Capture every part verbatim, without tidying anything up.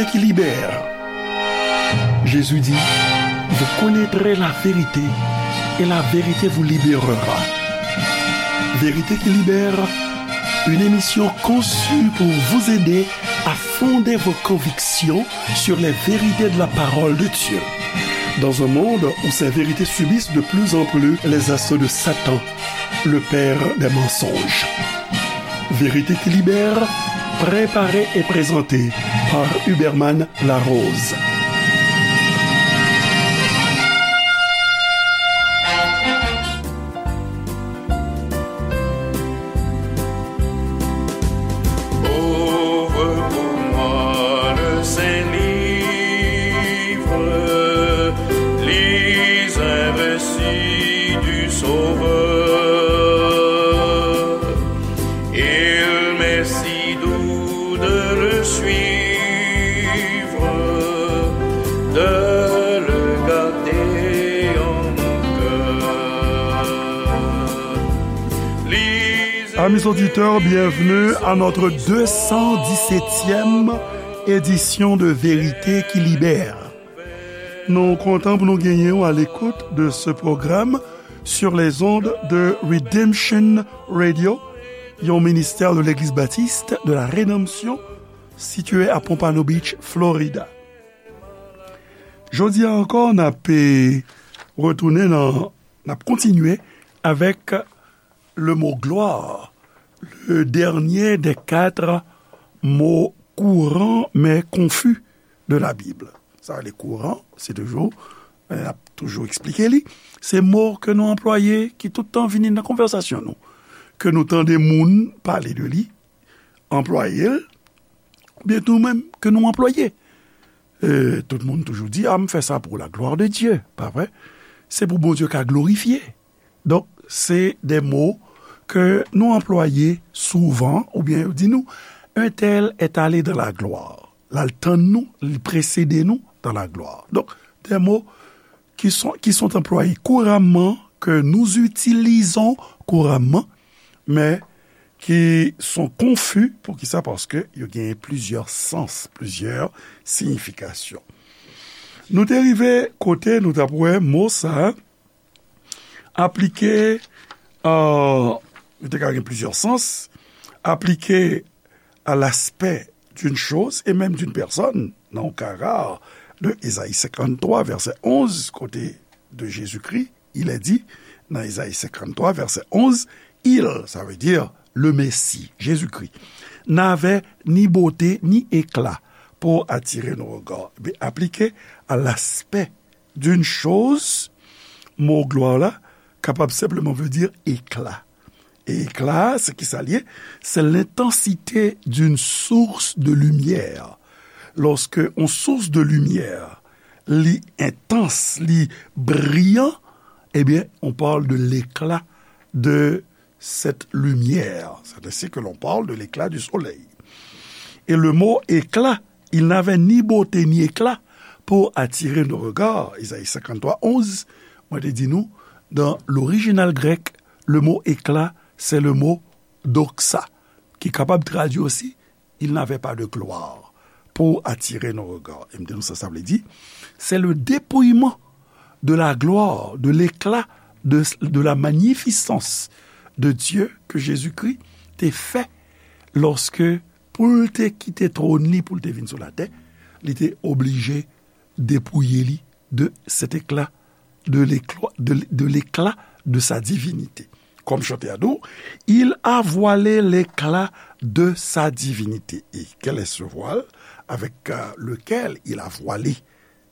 qui libère. Jésus dit, vous connaîtrez la vérité et la vérité vous libérera. Vérité qui libère, une émission conçue pour vous aider à fonder vos convictions sur les vérités de la parole de Dieu. Dans un monde où ces vérités subissent de plus en plus les assauts de Satan, le père des mensonges. Vérité qui libère, préparée et présentée par Huberman Larose. Ouvre pour moi le Saint-Livre, lis un récit du Sauveur. Il m'est si doux de le suivre, de le garder en mon cœur. Amis auditeurs, bienvenue à notre deux cent dix-septième édition de Vérité qui Libère. Nou kontan pou nou genyen w à l'écoute de ce programme sur les ondes de Redemption Radio, yon ministè de l'Église Baptiste de la Rédemption, situé à Pompano Beach, Florida. Jodi a ankò, n ap, eh, retounen nan, n ap kontinye avèk le mot gloire, le dernier des quatre mots courants mais confus de la Bible. Sa, le courant, se toujou, eh, n ap toujou eksplike li. Se mo ke nou anplwaye ki tout tan vini nan konvèsasyon nou. Ke nou tande moun pale de li, anplwaye l, oubyen tou menm ke nou anplwaye. Eh, tout moun toujou di, "Ah, m fè sa pour la gloire de Dieu," pa vre? Se pou Bondye ka glorifye. Donk, se de mo ke nou anplwaye souvan, oubyen yo di nou, "Un tel est allé dans la gloire." L al tann nou, li presede nou dans la gloire. Donk, de mo qui sont, qui sont employés couramment, que nous utilisons couramment, mais qui sont confus. Poukisa? Paske yo genyen plizyè sans, plizyè siyifikasyon. Nou te rive kote nou t ap wè mo sa a aplike, euh, li te ka gen plizyè sans, aplike à l'aspect d'une chose et même d'une personne, nan yon ka rar, de Ezayi senkanntwa, vèsè onz, kote de Jésus-Christ, il est dit, nan Ezayi senkanntwa, vèsè onz, il, ça veut dire le Messie, Jésus-Christ, n'avait ni beauté ni éclat pour attirer nos regards. Be aplike à l'aspect d'une chose, mo glwa la kapab senpleman vle di ekla. E ekla, se ki sa l ye? C'est l'intensité d'une source de lumière. Lorsque on source de lumière, li entans, li briyan, ebyen, on parle de l'éclat de cette lumière. C'est ainsi que l'on parle de l'éclat du soleil. Et le mot éclat, il n'avait ni beauté ni éclat pour attirer nos regards. Ezayi senkanntwa onz, mwen te di nou, dans l'original grec, le mot éclat, c'est le mot doxa, ki kapab tradui osi, il n'avait pas de gloire pour attirer nos regards. E m te di nou sa, sa vle di, c'est le dépouillement de la gloire, de l'éclat, de, de la magnificence de Dieu que Jésus-Christ te fè lorsque, pou l te kite twòn li, pou l te vin sou latè, li te oblije depouye li de cet éclat, de l'éclat, de, de l'éclat de sa divinité. Comme chanter à nous, il a voilé l'éclat de sa divinité. Et quel est ce voile avec, euh, lequel il a voilé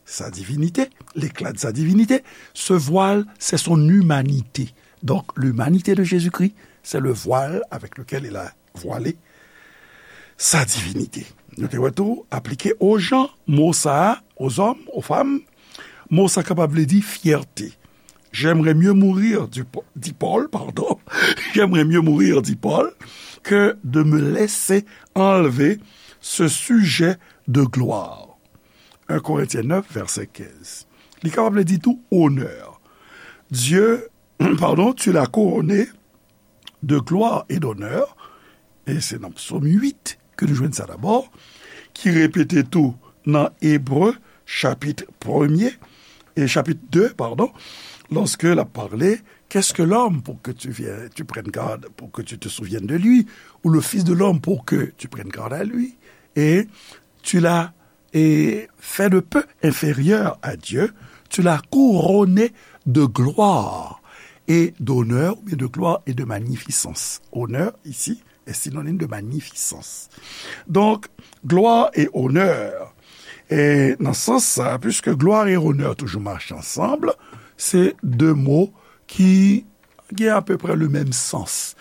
sa divinité, l'éclat de sa divinité? Ce voile, c'est son humanité. Donc, l'humanité de Jésus-Christ, c'est le voile avec lequel il a voile sa divinité. Nou te wè tou, aplike aux gens, mo sa a, aux hommes, aux femmes, mo sa kapab vle di fyète. J'aimerais mieux mourir, du po-, dit Paul, pardon. J'aimerais mieux mourir, dit Paul, que de me laisser enlever ce sujet de gloire. Un Corinthiens neuf, verset quinze. Li kapab vle di tou onè. Dieu, pardon, tu l'as couronné de gloire et d'honneur, e se nan Psaume huit ke nou jwenn sa dabò, ki repete tou nan Ebre, chapit premye, e chapit de, padon, lorsque il a parlé, qu'est-ce que l'homme pour que tu viennes, tu prennes garde, pour que tu te souviennes de lui, ou le fils de l'homme pour que tu prennes garde à lui, et tu l'as et fait de peu inférieur à Dieu, tu l'as couronné de gloire et d'honneur, ou bien de gloire et de magnificence. Honneur, ici, est synonyme de magnificence. Donc, gloire et honneur, e nan sans sa, puisque gloire et honneur toujou mache ansanm, se de mo ki gen apeprè le menm sans.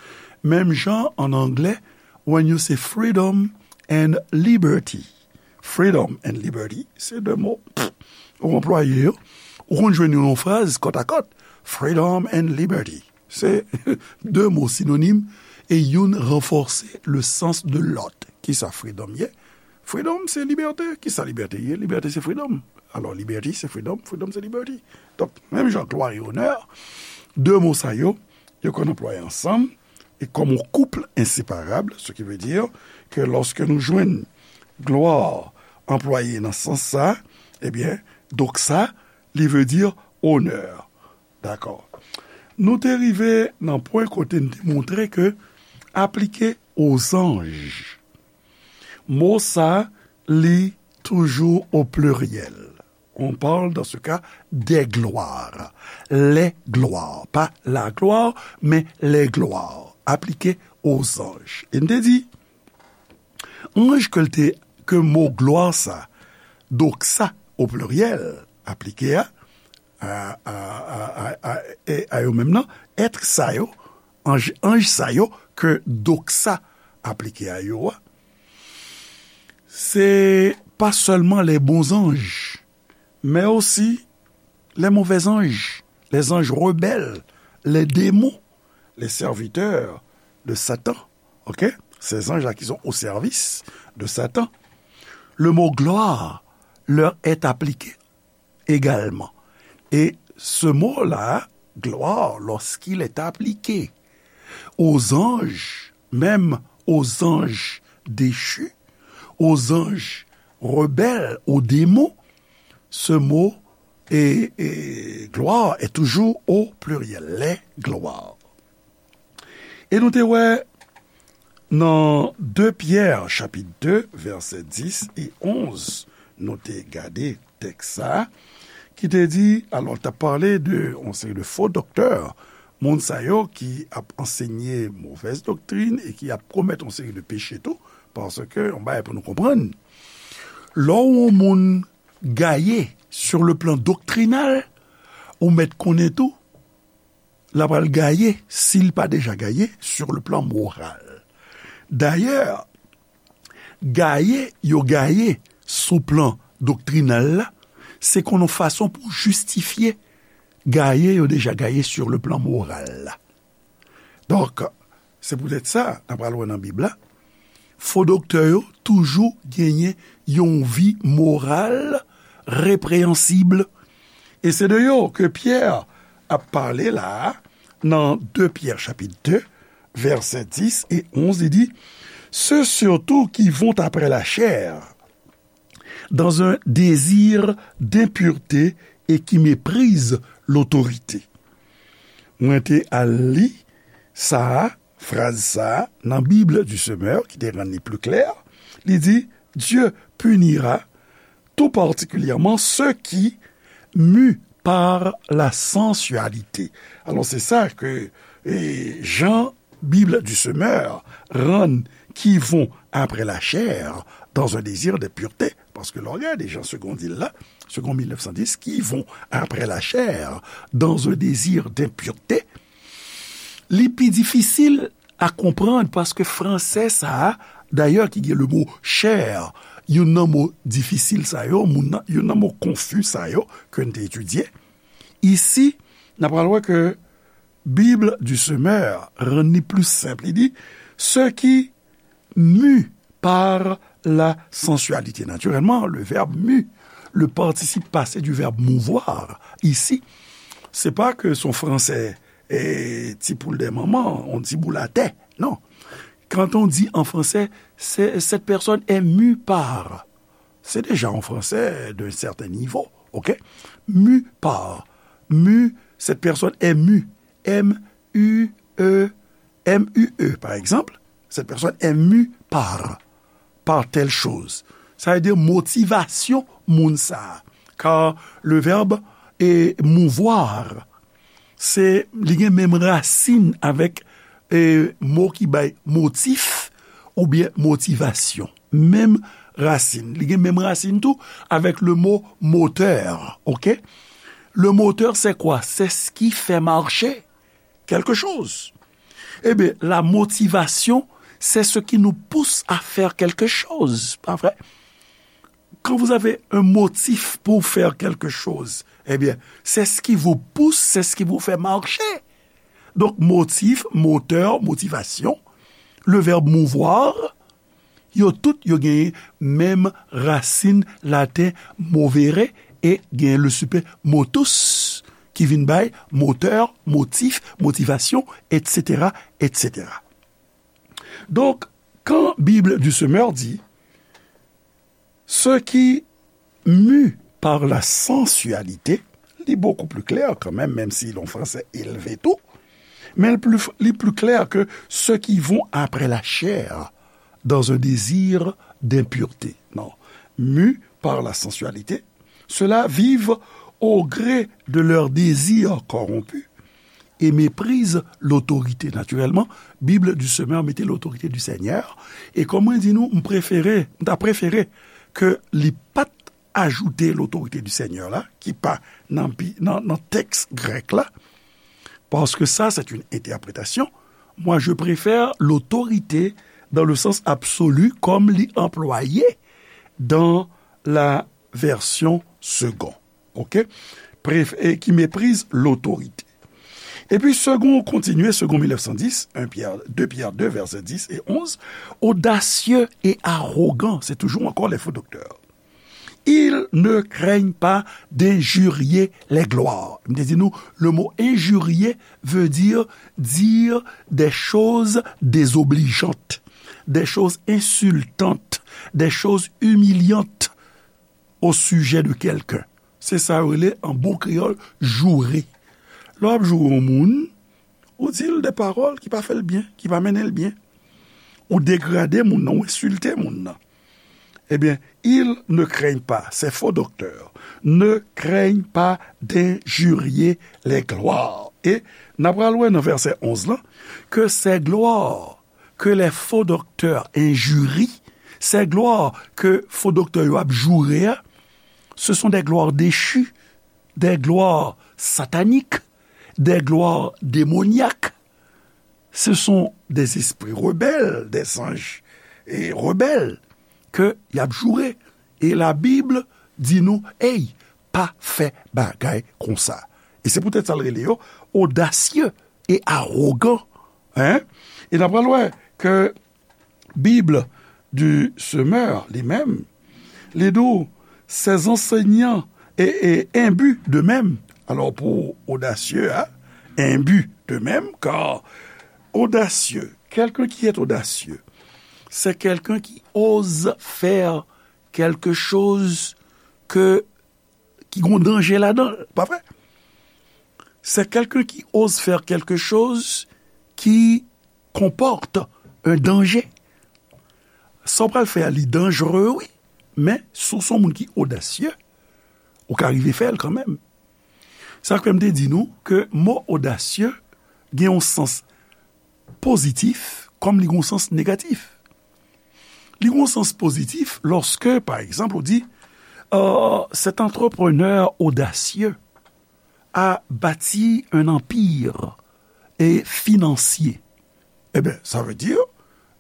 Menm jan an anglè, when you say freedom and liberty. Freedom and liberty, se de mo. Ou anplwaye yo, ou konn jwenn yo nan fraz kòtakòt. Freedom and liberty. Se de mo sinonim e youn ranfòse le sans de lòt. Kisa freedom ye? Freedom, se libète. Kisa libète ye? Libète, se freedom. Alò, liberty, se freedom. Freedom, se liberty. Donk, menm jan gloire et honneur, de mo sa yo, yo konn anplwaye ansanm, e comme un couple inséparable, ce qui veut dire que lorsque nou jwenn gloire anplwaye nan sans sa, ebyen, doxa, li vle di honneur. Dakò. Nou te rive nan pwen kote n te montre ke aplike aux anges, mo sa, li toujou au pluriel. On parle dans ce cas des gloires. Les gloires. Pas la gloire, mais les gloires. Aplike aux anges. E n te di, anj ke l te, ke mo glwa sa, doxa au pluriel, aplike a, a, a, a, a, a, e, a yo menm nan, èt sa yo, anj, anj sa yo ke doxa aplike a yo a, se pa sèlman les bons anges, mais aussi les mauvais anges, les anges rebelles, les démons, les serviteurs de Satan. Ok? Ces anges-là qui sont au service de Satan. Le mot gloire leur est appliqué également. Et ce mot-là, gloire, lorsqu'il est appliqué aux anges, même aux anges déchus, aux anges rebelles, aux démons, ce mot et, et gloire est toujours au pluriel, les gloires. E nou te wè nan de Pyè, chapit de, vèsè dis e onz, nou te gade tèks sa a, ki te di, alò, l t ap pale de yon seri de fo doktè, moun sa yo ki ap ansenye movèz doktrin e ki ap komèt yon seri de peche tou, paske yon bagay pou nou konprann, lè yon moun gaye sur le plan doktrinal, ou mèt konnen tou, l ap al gaye, si l pa deja gaye, sur le plan moral. Dayè, gaye yo gaye sou plan doktrinal la, se kon yon fason pou jistifye gaye yo deja gaye sur le plan moral la. Donk, se poutèt sa, n ap pral wè nan Bib la, fo doktè yo toujou genyen yon vi moral repreyansib. E se de yo ke Pyè ap pale la a, nan de Pyè chapit de, vèsè dis e onz, li di, ceux surtout qui vont après la chair, dans un désir d'impureté et qui méprisent l'autorité. Mwen te al li sa a, fraz sa a, nan Bible du Semeur, ki te rann li pli klè. Li di, Dieu punira tout particulièrement ceux qui, mus par la sensualité. Alò, se sa ke, e, Jean Bible du Semeur rann qui vont après la chair dans un désir de pureté. Paske lè w gade Jean Segond di l la, Segond mil nèf san dis, qui vont après la chair dans un désir d'impureté, li pi difisil a konprann paske fransè sa a, dayè ki gen le mo chair, youn nan mo difisil sa yo, moun nan, youn nan mo konfi sa yo ke n te etidye. Isi, n ap pral wè ke Bible du Semeur rann li pli senp. Li di, ceux qui, mus par la sensualité. Naturellement, le verbe mu, le participe passé du verbe mouvoir, ici, se pa ke se yon fransè, e, ti poul dè manman, yon ti boul atè. Non. Quand on dit en français, c'est, cette personne est mue par. C'est déjà en français d'un certain niveau, ok? Mu par. Mu, cette personne est mue. M U E, M U E, par exemple, cette personne est mue par, par telle chose. Sa vle di motivasyon moun sa a. Car le verbe est mouvoir. Se, li gen menm rasin avèk, e, mo ki bay motif oubyen motivasyon. Menm rasin. Li gen menm rasin tou avèk le mo moteur, ok? Le moteur, c'est quoi? C'est ce qui fait marcher quelque chose. Ebyen, la motivation, c'est ce qui nous pousse à faire quelque chose, pas vrai? Quand vous avez un motif pour faire quelque chose, eh bien, c'est ce qui vous pousse, c'est ce qui vous fait marcher. Donc, motif, moteur, motivation, le verbe mouvoir, yo tout, yo genyen menm rasin laten movere e genyen le supe motus ki vin bay moteur, motif, motivasyon, et cetera, et cetera. Donc, quand Bible du Semeur dit, ceux qui mus par la sensualité, li beaucoup plus clair quand même, même si l'on français élevé tout, mais le plus, li plus clair que ceux qui vont après la chair dans un désir d'impureté. Non. Mus par la sensualité, ceux-là vivent au gré de leurs désirs corrompus et méprisent l'autorité. Naturellement, Bible du Semeur mete l'autorité du Seigneur. E kòm mwen di nou, m prefere, m ta prefere ke li pa t ajoute l'autorité du Seigneur la, ki pa nan, nan, nan tèks grèk la, parce que ça, c'est une interprétation. Moi, je préfère l'autorité dans le sens absolu, comme li employé dans la version Segond. Ok? Préf-, et qui méprise l'autorité. Epi Segond kontinye, Segond mil nèf san dis, un Pierre, deux Pierre deux, verset dix et onze, audacieux et arrogant, c'est toujours encore les faux docteurs. Ils ne craignent pas d'injurier les gloires. M te di nou, le mot injurier veut dire dire des choses désobligeantes, des choses insultantes, des choses humiliantes au sujet de quelqu'un. Se sa yo rele an bon kreyòl joure. Lè w ap joure yon moun, ou di l de pawòl ki pa fè l byen, ki pa mennen l byen. Ou degrade moun nan, ou ensilte moun nan. Ebyen, ils ne craignent pas, ces faux docteurs, ne craignent pas d'injurier les gloires. E n ap pral wè nan vèsè onz lan, que ces gloires que les faux docteurs injurient, ces gloires que fo doktè yo ap joure a, ce sont des gloires déchues, des gloires sataniques, des gloires démoniaques. Ce sont des esprits rebelles, des anges, e, rebelles ke y ap joure. E Labib di nou, ey, pa fè bagay konsa. E se poutèt sa l rele yo odasye e awogan. Hein? E n ap pral wè ke Bible du Semeur, li menm, li di w, ces enseignants et, et imbus d'eux-mêmes. Alors, pour audacieux, hein, imbu d'eux-mêmes, car audacieux, quelqu'un qui est audacieux, c'est quelqu'un qui ose faire quelque chose que ki gon danje ladan l, pa vre? C'est quelqu'un qui ose faire quelque chose qui comporte un danger. Sa w pral fè a, li danjere, wi. Men, si w se yon moun ki odasye, ou ka rive fè l kanmenm. Sa k fè m te di nou ke mo odasye gen yon sans pozitif kòm li gen yon sans negatif. Li gen yon sans pozitif lòske, pa egzanp, ou di, euh, cet entrepreneur audacieux a bâti un empire, e, financier. Ebyen, sa vle di,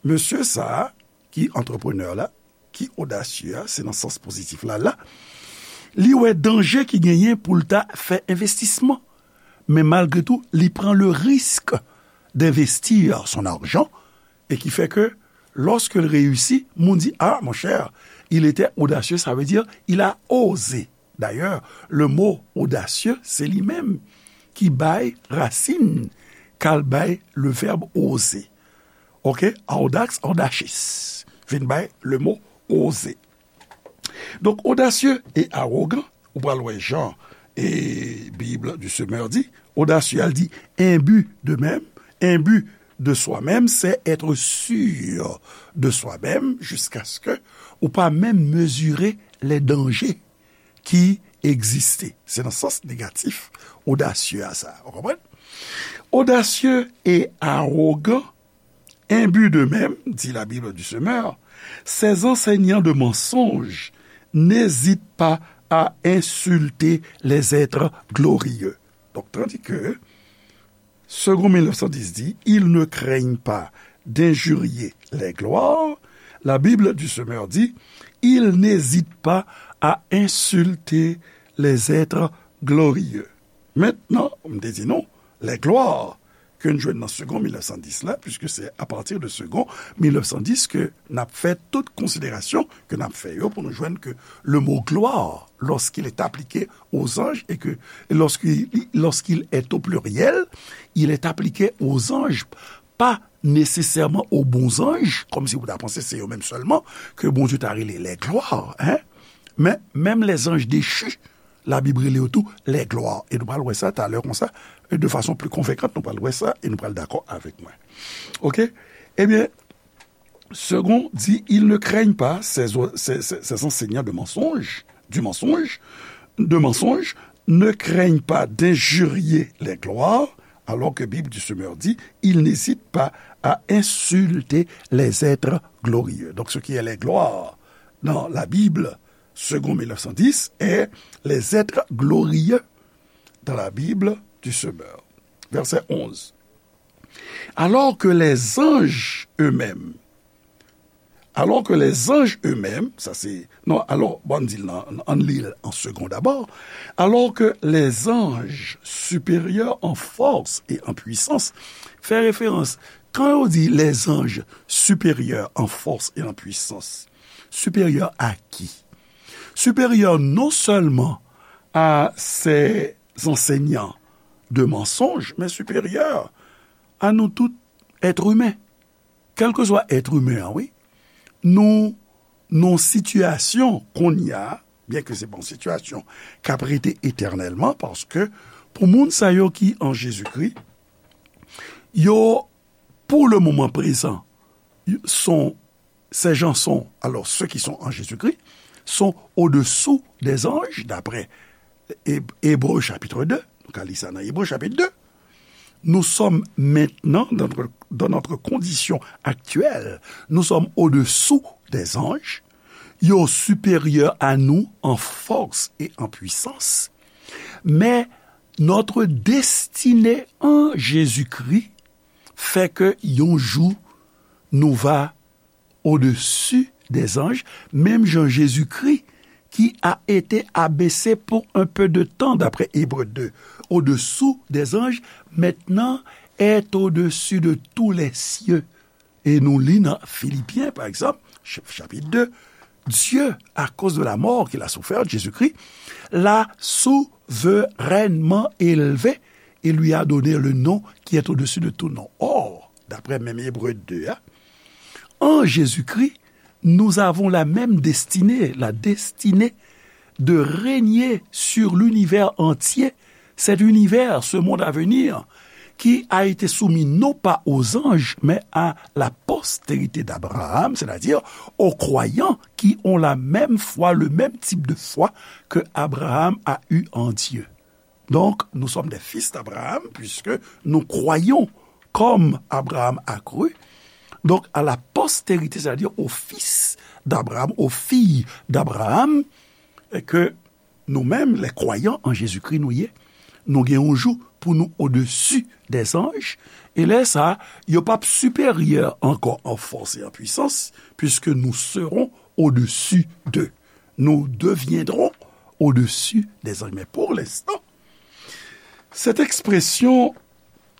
mesye sa a, ki antreprenè la, ki odasye a, se nan sans pozitif la, la, li wè danje ki genyen pou l ta fè envestisman. Men malgre tou, li pran le risque d'investir son argent e ki fè ke, lorsque il réussit, moun di, ah, mon cher, il était audacieux, ça veut dire, il a osé. D'ailleurs, le mot audacieux, se li menm ki bay rasin k al bay le verbe oser. Ok? Audax, audacious. Vin bay le mot oser. Donk, audacieux et arrogant, ou pral wè jan e Bible du Semeur di, audacieux, al di, imbu d'eux-mêmes, imbu de soi-même, c'est être sûr de soi-même jusqu'à ce que ou pa menm mezire les dangers ki egziste. Se nan sans negatif, audacieux a sa. Ou konprann? Audacieux et arrogant, imbu d'eux-mêmes, dit la Bible du Semeur, ces enseignants de mensonges n'hésitent pas à insulter les êtres glorieux. Donc, tandis que Segond mil nèf san dis di, ils ne craignent pas d'injurier les gloires. La Bible du Semeur dit, ils n'hésitent pas à insulter les êtres glorieux. Maintenant, m te di nou, les gloires ke n jwenn nan Segond mil nèf san dis la, puisque c'est à partir de Segond mil nèf san dis ke n ap fè tout konsiderasyon ke n ap fè yo pou nou jwenn ke le mot gloire, lorsqu'il est appliqué aux anges et que lorsqu'il, lorsqu'il est au pluriel, il est appliqué aux anges, pas nécessairement aux bons anges, kòmsi ou ta panse se yo menm sèlman ke Bondye ta rele les gloires, hein? Men, menm les anges déchus, Labib rele yo tou les gloires. E nou pral wè sa talè konsa, de fason pli konvekant, nou pral wè sa e nou pral dakò avèk mwen. Oke? Ebyen, Segond dit, ils ne craignent pas ces, ces, ces, ces enseignants de mensonges, du mensonge, de mensonge, ne craignent pas d'injurier les gloires, alors que Bible du Semeur dit, ils n'hésitent pas à insulter les êtres glorieux. Donc, ce qui est les gloires dans la Bible, Segond mil nèf san dis, est les êtres glorieux dans la Bible du Semeur. Verset onze. Alors que les anges eux-mêmes, alors que les anges eux-mêmes, sa se, non, alò, bon, ann di l nan, ann li l an segon dabò, alors que les anges supérieurs en force et en puissance, fè referans, kan yo di les anges supérieurs en force et en puissance, supérieurs à qui? Supérieurs non seulement à ces enseignants de mensonges, mais supérieurs à nous tout être humain. Kèlkeswa èt imen an, wi. Nou, nou sitiyasyon kounye a, byen ke se pa yon sitiyasyon k ap rete etènèlman, paske pou moun sa yo ki an Jezikri, yo, pour le moment présent, sont, ces gens sont, alors ceux qui sont en Jésus-Christ, sont au-dessous des anges, d'après Eb-, Ebre chapit de, nou ka li sa nan Ebre chapit de. Nous sommes maintenant, dans notre, dans notre condition actuelle, nous sommes au-dessous des anges, yo supérieurs à nous en force et en puissance, mais notre destinée en Jésus-Christ fait que yon jou nou va au-dessus des anges, menm jan Jezikri, qui a été abaissé pour un peu de temps, d'après Hébreux deux, au-dessous des anges, maintenant est au-dessus de tous les cieux. E nou li nan Filipyen, pa egzanp, ch-, chapit de, Dieu, à cause de la mort qu'il a soufferte, Jésus-Christ, l'a souverainement élevé et lui a donné le nom qui est au-dessus de tout nom. Or, d'après menm Ebre de a, en Jésus-Christ, nous avons la même destinée, la destinée de régner sur l'univers entier, cet univers, ce monde à venir, qui a été soumis non pas aux anges, mais à la postérité d'Abraham, c'est-à-dire aux croyants qui ont la même foi, le même type de foi que Abraham a eu en Dieu. Donc, nous sommes des fils d'Abraham, puisque nous croyons comme Abraham a cru. Donc, à la postérité, c'est-à-dire au fils d'Abraham, aux filles d'Abraham, et que nou menm, les croyants en Jésus-Christ, nou ye, nou gen yon jou pou nou au-dessus des anges, e lè sa, yo p ap siperyè ankò an fòs e an pwisans, puisque nous serons au-dessus d'eux. Nous deviendrons au-dessus des anges. Mais pour l'instant, cette expression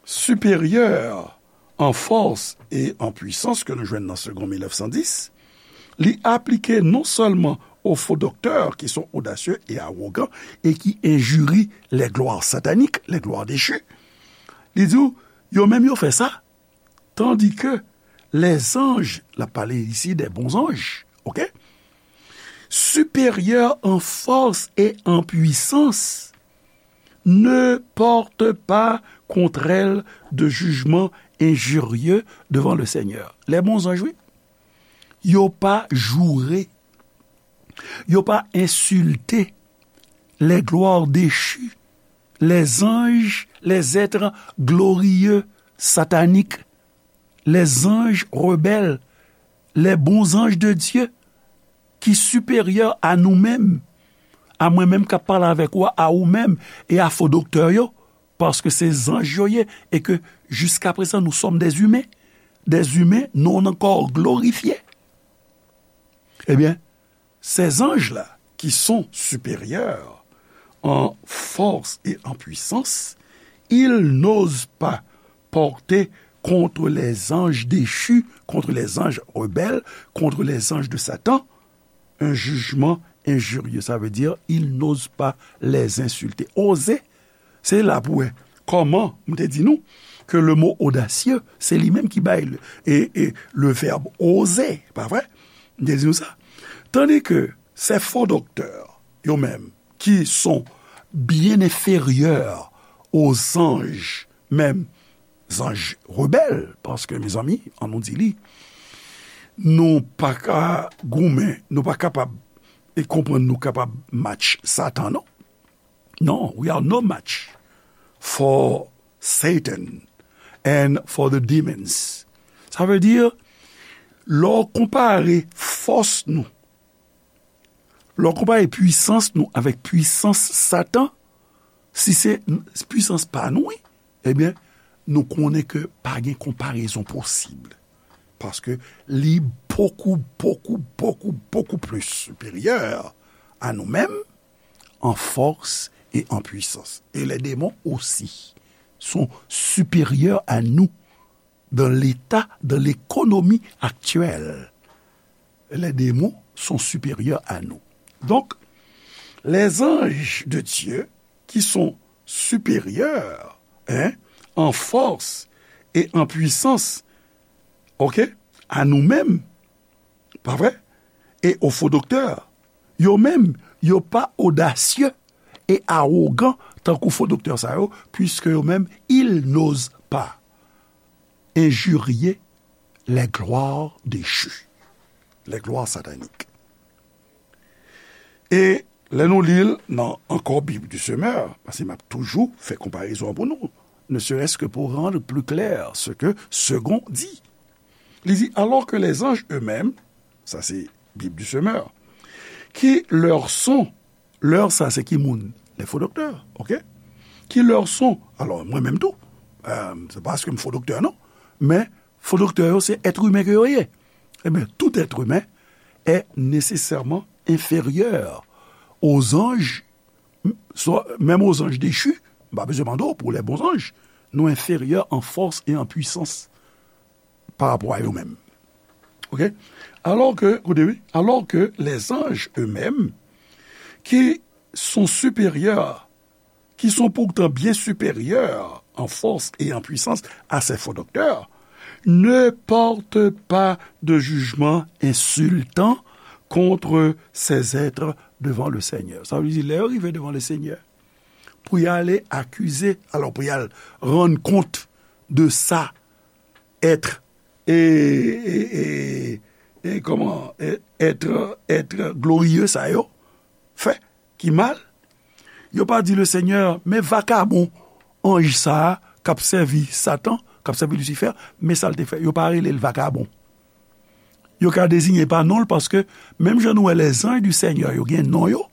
supérieur en force et en puissance ke nou jwenn nan Segon mil nèf san dis, li aplike non sèlman aux faux docteurs qui sont audacieux et arrogants et qui injurient les gloires sataniques, les gloires déchues. Li di w, yo menm yo fè sa, tandis que les anges, l ap pale isi de bon zanj, oke? Supérieurs en force et en puissance, ne portent pas contre elles de jugement injurieux devant le Seigneur. Lè bon zanj, wi, yo pa joure, yo pa ensilte les gloires déchues, les anges, les êtres glorieux, sataniques, les anges rebelles, les bons anges de Dieu, ki siperyè a nou menm, a mwen menm k ap pale avèk ou a, a ou menm, e a fo doktè yo, paske se zanj yo ye, e ke jiska prezan nou sòm dèzimen. Dèzimen, nou nan kò glorifye. Ebyen, ces anges-là, qui sont supérieurs en force et en puissance, ils n'osent pas porter contre les anges déchus, contre les anges rebelles, contre les anges de Satan, un jugement injurieux. Ça veut dire, ils n'osent pas les insulter. Oze, se la pou wè kòman m te di nou ke le mot audacieux, se li menm ki bay le, e, e le verbe oser, pa vre? M te di nou sa. Tandis que ces faux docteurs, yo menm, qui sont bien inférieurs aux anges, menm zanj rebèl, paske, mezanmi, an nou di li, nou pa ka goumen, nou pa kapab e konprann nou kapab match Satan, non. Non, we are no match for Satan and for the demons. Sa vle di, lè w konpare fòs nou, lè w konpare pwisans nou avèk pwisans Satan, si se pwisans pa nou, wi, ebyen, nou konnen ke pa gen konparezon posib. Paske li bokou, bokou, bokou, bokou plis siperyè a nou menm, an fòs e an pwisans. Et les démons aussi sont supérieurs à nous dans l'état, dans l'économie actuelle. Les démons sont supérieurs à nous. Donc, les anges de Dieu qui sont supérieurs, hein, en force et en puissance, ok, à nous-mêmes, pa vre? E o fo doktè, yo menm, yo pa odasye e awogan tankou fo doktè sa yo, puiske yo menm, ils n'osent pas injurier les gloires déchues, les gloires sataniques. E lè nou li l nan ankò Bible du Semeur, paske m ap toujou fè konparezon an pou nou, ne serait-ce que pour rendre plus clair ce que Segond dit. Li di, alors que les anges eux-mêmes, sa se Bible du Semeur, qui leur sont, leur sa se ki moun? Les faux docteurs, ok? Qui leur sont, alò, mwen menm tou, euh, se pa paske m fo doktè, non, men fo doktè yo, se èt imen ke yo ye. Ebyen, tout être humain est nécessairement inférieur aux anges, soit, même aux anges déchus, m pa bezwen mande w pou les bons anges, nou inférieurs en force et en puissance par rapport à eux-mêmes. Ok? Alors que, écoutez, oui, alors que les anges eux-mêmes, qui sont supérieurs, qui sont pourtant bien supérieurs en force et en puissance à ces faux docteurs, ne portent pas de jugement insultant contre ces êtres devant le Seigneur. Sa vle di, lè yo rive devan le Seigneur, pou y ale akize, alò pou y al rann kont de sa èt, e, e, e, e, kòman, e, èt, èt gloriye sa yo fè ki mal, yo pa di le Seigneur, men vakabon anj sa a k ap sèvi Satan, k ap sèvi Lisifè, men sa l te fè. Yo pa rele l vakabon. Yo ka deziyen pa non l, paske menm jan nou wè les anges du Seigneur, yo gen non yo,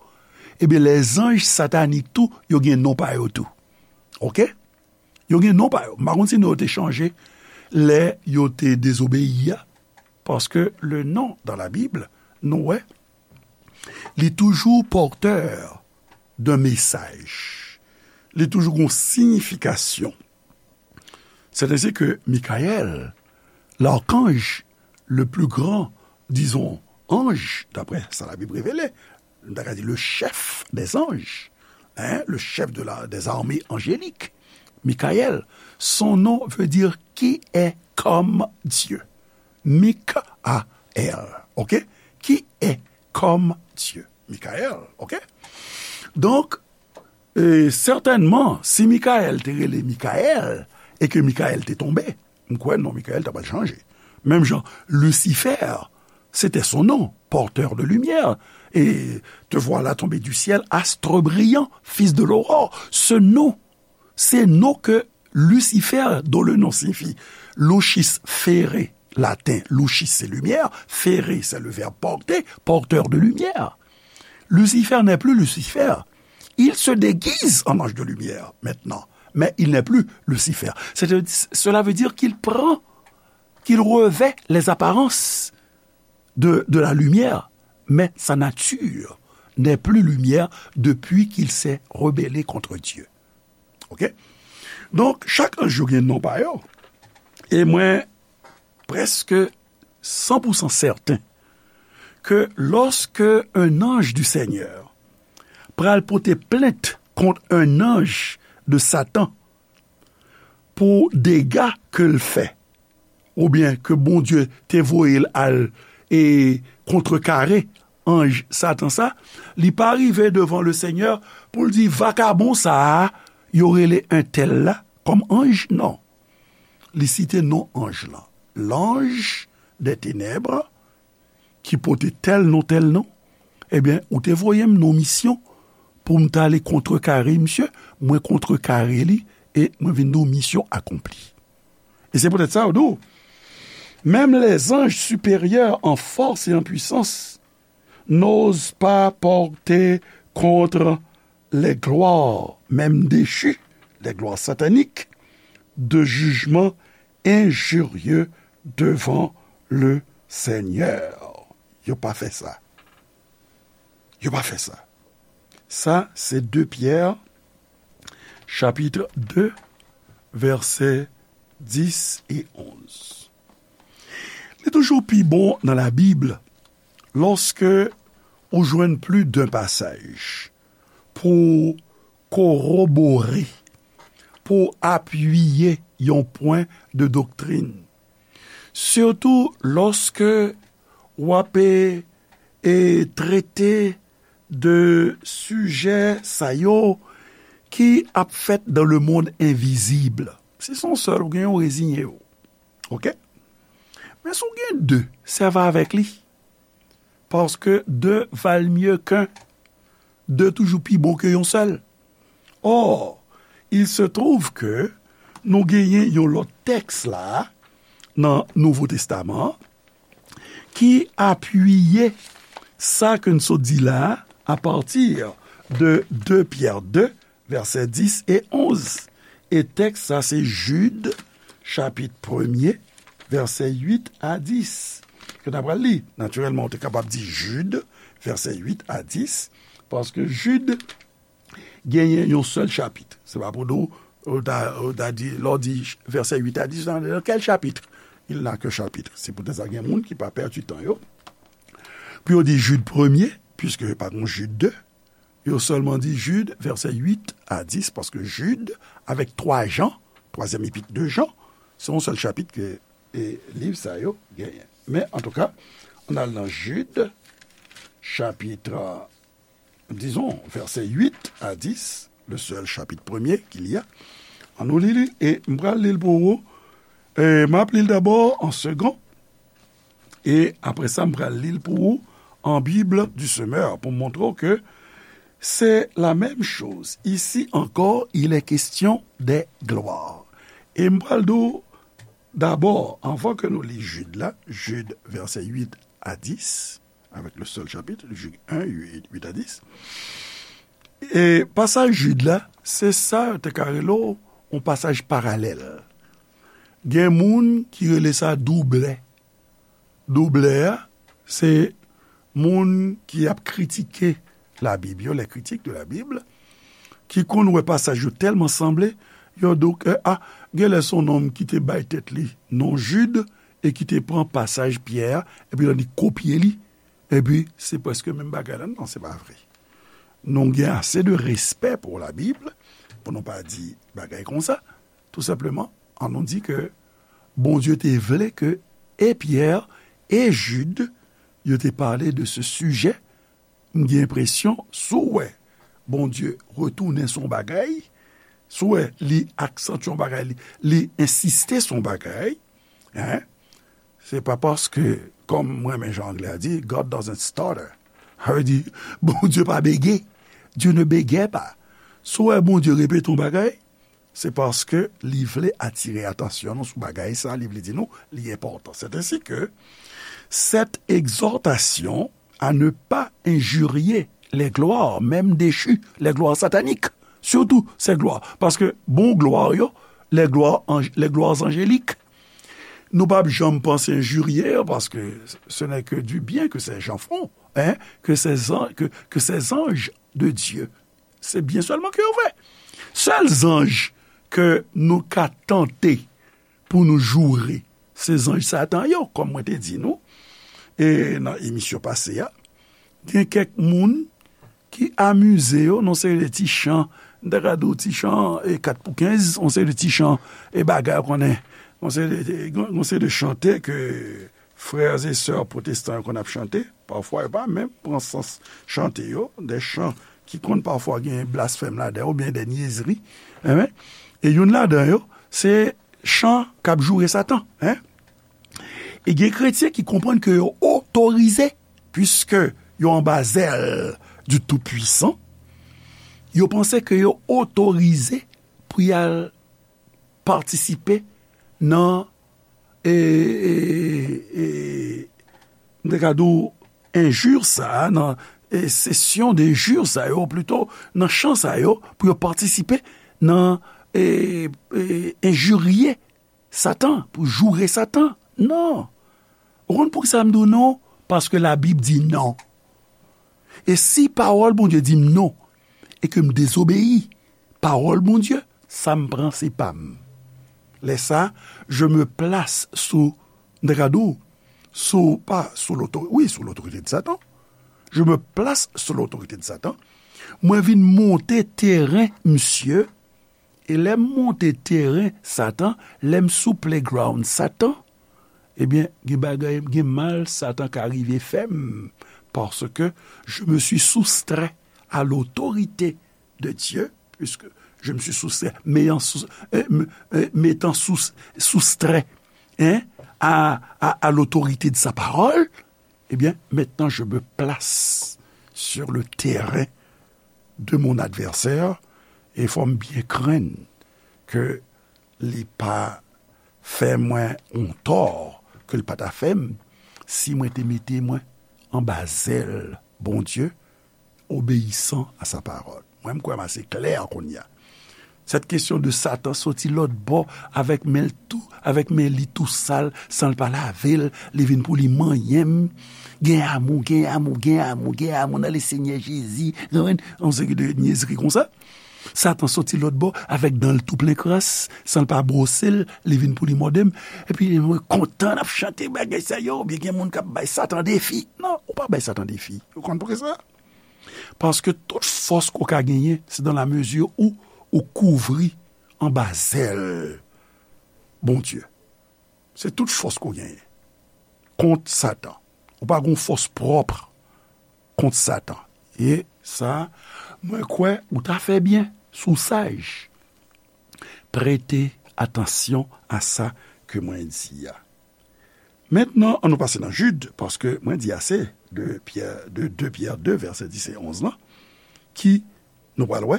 ebyen les anges sataniques tou, yo gen non pa yo tou. Ok? Yo gen non pa yo. M pa konn si non yo te chanje lè yo te dezobeyi a, paske le nom dans la Bible, nou wè, li toujou pòtè d'un message. Li toujou gon siyifikasyon. C'est ainsi que Michael, l'archange le plus grand, disons, ange, d'après sa la Bible révèle, nou ta ka di le chef des anges, hein, le chef de la, des armées angéliques, Michael, son nom veut dire qui est comme Dieu. Michael, ok? Qui est comme Dieu. Michael, ok? Donk, e, sètènman, si Michael te rele Michael e ke Michael te tonbe, m kwè non Michael ta pral chanje. Menm jan, Lucifer, c'était son nom, porteur de lumière. Et te voilà tombé du ciel, astre brillant, fils de l'aurore. Ce nom, ces noms que Lucifer, dont le nom signifie lucis fere, latin, lucis c'est lumière, fere c'est le verbe porter, porteur de lumière. Lucifer n'est plus Lucifer. Il se déguise en ange de lumière maintenant, mais il n'est plus Lucifer. C'est, cela veut dire qu'il prend, qu'il revêt les apparences de, de la lumière, mais sa nature n'est plus lumière depuis qu'il s'est rebellé contre Dieu. Ok? Donk, chak anj yo gen non pa yo. E mwen prèske san pou san sèten ke lòske un ange du Seigneur pral pote plent kont un ange de Satan pou dega ke l fè, oubyen ke Bondye te voye l al e kontrekare anj Satan sa, li pa rive devan le Senyè pou l di, vakabon sa a, yo rele entèl la kòm anj, non. Li site non anj lan. L'ange des ténèbres, ki pote tèl non, tèl non, ebyen, ou te voye m nan misyon pou m t ale kontrekare misye, mwen kontrekare li, e mwen vin di w misyon akonpli. E se poutèt sa, yo di w, même les anges supérieurs en force et en puissance n'osent pas porter contre les gloires, même déchues, les gloires sataniques, de jugement injurieux devant le Seigneur. Yo pa fè sa. Yo pa fè sa. Sa, se de Pyè, chapit de, vèsè dis e onz. Li toujou pi bon nan Labib lòske ou jwenn plis de pasaj pou korobore, pou apiye yon pwen de doktrin. Sitou lòske w ap, e, e, trete de sijè sa yo ki ap fèt dans le monde invisible. Si se yon sèl ou gen, ou reziye w. Ok? Men si w gen de, sèvi avèk li. Paske de valent mieux qu'un. De toujou pi bon ke yon sèl. Or, il se trouve que nou genyen yon lòt tèks la nan Nouvo Testaman an ki apiye sa ke n sot di la a, à partir de de Pyè de, vèsè dis e onz. E tèks sa se Jid, chapit premye, vèsè uit a dis. Ke n ap pral li. Natirèlman, ou te kapab di Jid, vèsè uit a dis, paske Jid genyen yon sèl chapit. Se pa pou nou, ou ta, ou ta di, lè w di vèsè uit a dis, dans quel chapitre? Il n'a qu'un chapitre. Se poutèt sa gen moun ki pa pèdi tan yo. Pou yo di Jid premye, piske pa gen Jid de, yo sèlman di Jid, vèsè uit a dis, paske Jid, avèk twa Jan, twazyèm epit de Jan, se yon sèl chapit ke, e, liv sa yo genyen. Men, antouka, ann al nan Jid, chapit, dizon, vèsè uit a dis, le sèl chapit premye qu'il y a. Ann nou li li, e m pral li l pou ou. E m ap li l dabò an segon. E apre sa, m pral li l pou ou an Bible du Semeur pou m montre w ke c'est la même chose. Ici encore, il est question des gloires. E m pral di w dabò, anvan ke nou li Jid la, Jid vèsè uit a dis, avec le seul chapitre, Jid en, uit, uit a dis. E pasaj Jid la, se sa yo te ka rele w yon pasaj paralèl. Gen moun ki rele sa doublè. Doublè a, se moun ki ap kritike Labib yo, les critiques de la Bible, ki konn wè pasaj yo tèlman sanble, yo di w ke, a, genlè se yon nonm ki te bay tèt li non Jid e ki te pran pasaj Pyè a, epi li kopye li, epi se prèske menm bagay la. Non, se pa vre. Nou gen ase de respè pou Labib, pou nou pa di bagay konsa. Tou senpleman, ann nou di ke Bondye te vle ke e Pyè e Jid, yo te pale de se sijè M gen enpresyon, si w wè Bondye retounen sou yon bagay, si w wè li aksantye yon bagay, li, li ensiste sou yon bagay, en, se pa paske, kòm mwen renmen jan anglè a di, God doesn't stutter. Sa vle di, Bondye pa bege. Dieu ne bégait pas. Si w wè Bondye repete yon bagay, se paske li vle atire atansyon nou sou bagay sa, li vle di nou li enpòtan. C'est ainsi que cette exhortation à ne pas injurier les gloires, même déchues, les gloires sataniques, surtout ces gloires. Paske bon glwa yo, les gloires, anj- les gloires angéliques, nou p ap janm panse injurier, paske ce n'est que du bien que ces gens font, hein, que ces an- que, que ces anges de Dieu, se byen sèlman ke yo fè. Sèl zanj ke nou ka tante pou nou joure, se zanj Satan yo, kòm mwen te di nou, e nan emisyon pase a, gen kèk moun ki amize yo nan seri de ti chan, m ta ka di w ti chan, e, kat pou kenz, yon seri de ti chan, e, bagay, ou konnen, yon seri de, yon seri de chante ke frè e sè pwotestan yo konn ap chante, pafwa yo pa menm pran sans chante yo, de chan ki konn pafwa gen blasfèm ladan yo, oubyen de nyezri, enben, e youn ladan yo, se chan k ap joure Satan, en. E gen kretyen ki konprann ke yo otorize, piske yo anba zèl du Tout-Puissant, yo panse ke yo otorize pou y al patisipe nan, e, e, e, m te ka di w, enjir sa a, nan, e, sesyon de jir sa yo, plito nan chan sa yo, pou yo patisipe nan, e, e, enjirye Satan, pou joure Satan. Non. Ou konn poukisa m di w non? Paske Labib di non. E si pawòl Bondye di m non, e ke m dezobeyi pawòl Bondye, sa m pran se pa m. Lè sa, je me place sous, m te ka di w, sou, pa sou lotorite, wi, sou lotorite de Satan. Je me place sous l'autorité de Satan. Mwen vin monte teren misye, e lè m monte teren Satan, lè m sou playground Satan, ebyen, gen bagay, gen mal Satan ka rive fè m, paske je me suis soustrait à l'autorité de Dieu, puisque je me suis soustrait, m'ayant sous- euh, me- euh, m'étant sous- soustrait, hein, à, à, à l'autorité de sa parole, eh bien, maintenant je me place sur le terrain de mon adversaire, e fò m byen krenn ke li pa fè mwen yon tò ke l pa ta fè m si mwen te mete mwen anba zèl Bondye, obéissant à sa parole. Mwen, m kwè m ase klè kounye a. Cette question de Satan soti lòt bò avèk men l tou, avèk men li tou sal, san l pa lave l, li vin pou li manyen m. Gen amou, gen amou, gen amou, gen amou nan le Senyè Jezi. Konprann? Yon seri de nyezri konsa. Satan soti lòt bò avèk dan l tou plen kras, san l pa bwose l, li vin pou li mòde m. Epi mwen kontan n ap chante bagay sa yo, oubyen gen moun k ap bay Satan defi. Non, ou pa bay Satan defi. Ou konn poukisa? Paske tout fòs ke w ka genyen, se dans la mesure où ou kouvri anba zèl Bondye. Se tout fòs ke w genyen kont Satan. Ou pa gen fòs pwòp kont Satan. E sa, mwen kwè ou ta fè byen, si w saj, prete atansyon a sa ke mwen di a. Mentnan, ann nou pase nan Jid, paske mwen di ase de Pyè, de de Pyè de, vèsè dis e onz lan, ki, nou pral wè,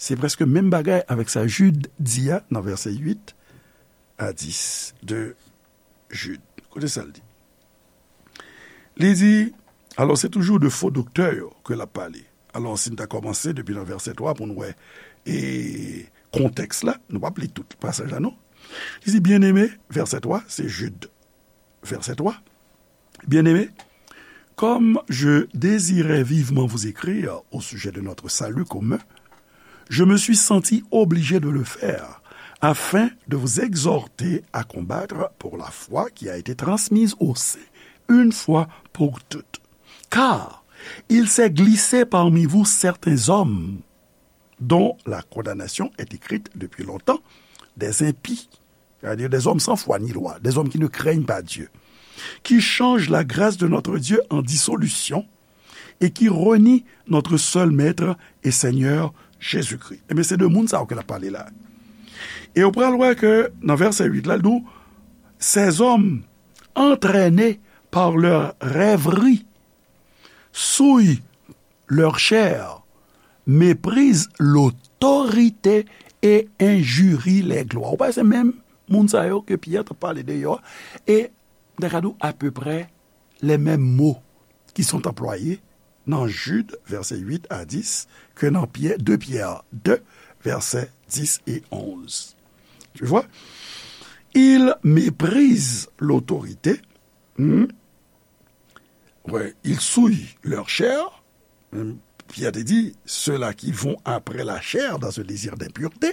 se prèske menm bagay avèk sa Jid di a nan vèsè uit a dis de Jid. Koute sa l di. Li di, alò, se toujou de fo doktè yo ke l ap pale. Alò, si n ta kòmanse depi nan vèsè twa pou n wè, e, kontèks la, nou p ap li tout pasaj la, non. Li di, byeneme, vèsè twa, se Jid, vèsè twa. Bien-aimés, comme je désirais vivement vous écrire au sujet de notre salut commun, je me suis senti obligé de le faire afin de vous exhorter à combattre pour la foi qui a été transmise aux saints une fois pour toutes. Car il s'est glissé parmi vous certains hommes dont la condamnation est écrite depuis longtemps, des impies, c'est-à-dire des hommes sans foi ni loi, des hommes qui ne craignent pas Dieu, qui changent la grâce de notre Dieu en dissolution et qui renie notre seul Maître et Seigneur Jésus-Christ. Ebyen, se de moun sa yo ke l ap pale la. E ou pral wè ke nan vèsè uit la, l di w, ces hommes, entraînés par leurs rêveries, souillent leur chair, méprisent l'autorité et injurient les gloires. Ou pa se menm moun sa yo ke Pyè t ap pale de yo a, e m ta ka di w apeprè les mêmes mots qui sont employés dans Jude, versets huit à dix, que dans Pierre, deux Pierre deux, versets dix et onze. Tu vois? Ils méprisent l'autorité. Hmm? Ouais, ils souillent leur chair. Hmm, Pierre te di, ceux-là qui vont après la chair dans ce désir d'impureté,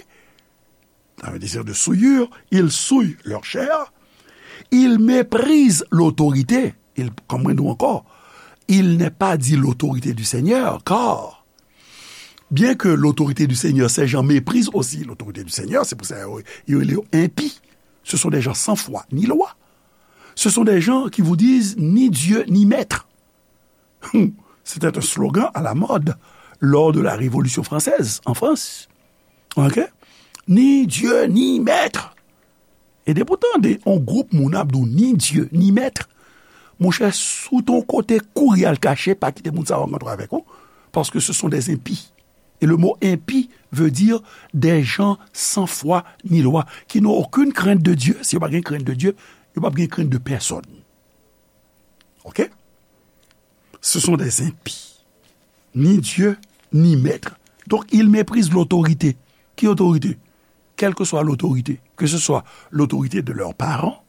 dans le désir de souillure, ils souillent leur chair, ils méprisent l'autorité. Il, comme nous encore, il n'est pas dit l'autorité du Seigneur, car bien que l'autorité du Seigneur, ces gens méprisent aussi l'autorité du Seigneur, c'est pour ça qu'ils sont impies. Ce sont des gens sans foi ni loi. Ce sont des gens qui vous disent ni Dieu ni maître. C'était un slogan à la mode lors de la Révolution française en France. Ok? Ni Dieu ni maître. E depi w tande yon gwoup moun ap di w ni Dieu ni maître, monchè, si w te yon kote, kouri al kache, pa kite moun sa yo rankontre avèk ou, parce que ce sont des impies. Et le mot impie veut dire des gens sans foi ni loi, qui n'ont aucune crainte de Dieu. Si yo pa gen crainte de Dieu, yo pa gen crainte de personne. Ok? Ce sont des impies. Ni Dieu, ni maître. Donc, ils méprisent l'autorité. Ki otorite? Quelle que soit l'autorité, que ce soit l'autorité de leurs parents,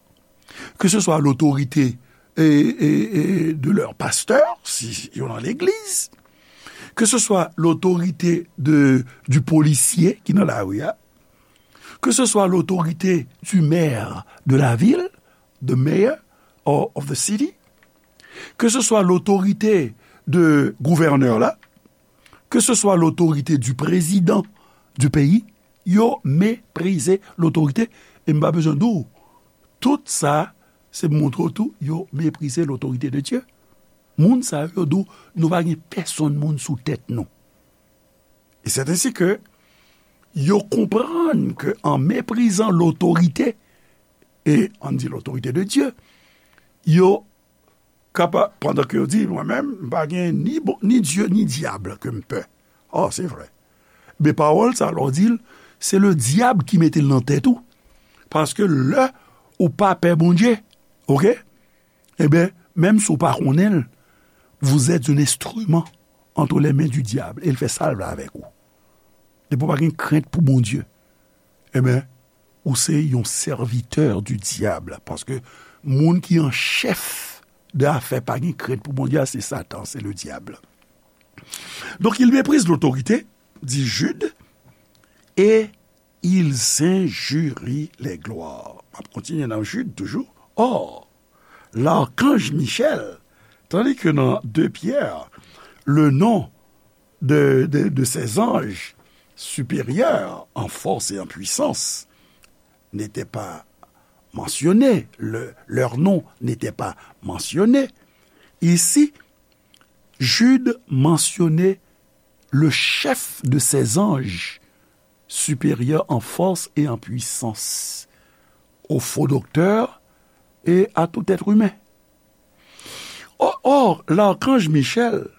que ce soit l'autorité, eh, eh, eh, de leur pasteur, si yo nan legliz, que ce soit l'autorité de, du policier ki nan lari a, que ce soit l'autorité du maire de la ville, the mayor or of the city, que ce soit l'autorité de gouvènè la, que ce soit l'autorité du président du pays, yo meprize lotorite. E m pa bezwen di w, tout sa, se pou montre w tou, yo meprize lotorite de Dye. Moun sa yo, yo di w, nou pa gen pèsonn moun sou tèt nou. E c'est ainsi que yo konprann ke an meprizan lotorite, e ann di lotorite de Dye, yo kapa-, pandan ke yo di, mwen menm, m pa gen ni bon, ni Dye, ni dyab ke m pè. Oh, se vre. Men pawòl sa, lè w di l, se le dyab ki mete l nan tèt ou. Paske lè ou pa pè Bondye, oke? Ebyen, menm si w pa konnen l, vous êtes un instrument entre les mains du diable, e l fè sa l vle avèk ou. Depi w pa gen krent pou Bondye, ebyen, ou se yon sèvitè di dyab, paske moun ki an chèf de afè pa gen krent pou Bondye a, se Satan, se le diable. Donc, ils méprisent l'autorité, dit Jude, et ils injurient les gloires. M ap kontinye nan Jude toujou. Or, l'archange Michel, tandis que dans deux Pierre, le nom de, de, de ces anges supérieurs en force et en puissance n'était pas mentionné, le, leur nom n'était pas mentionné. Ici, Jude mentionnait le chef de ces anges supérieurs en force et en puissance, au faux docteur et à tout être humain. Or, or, l'archange Michel,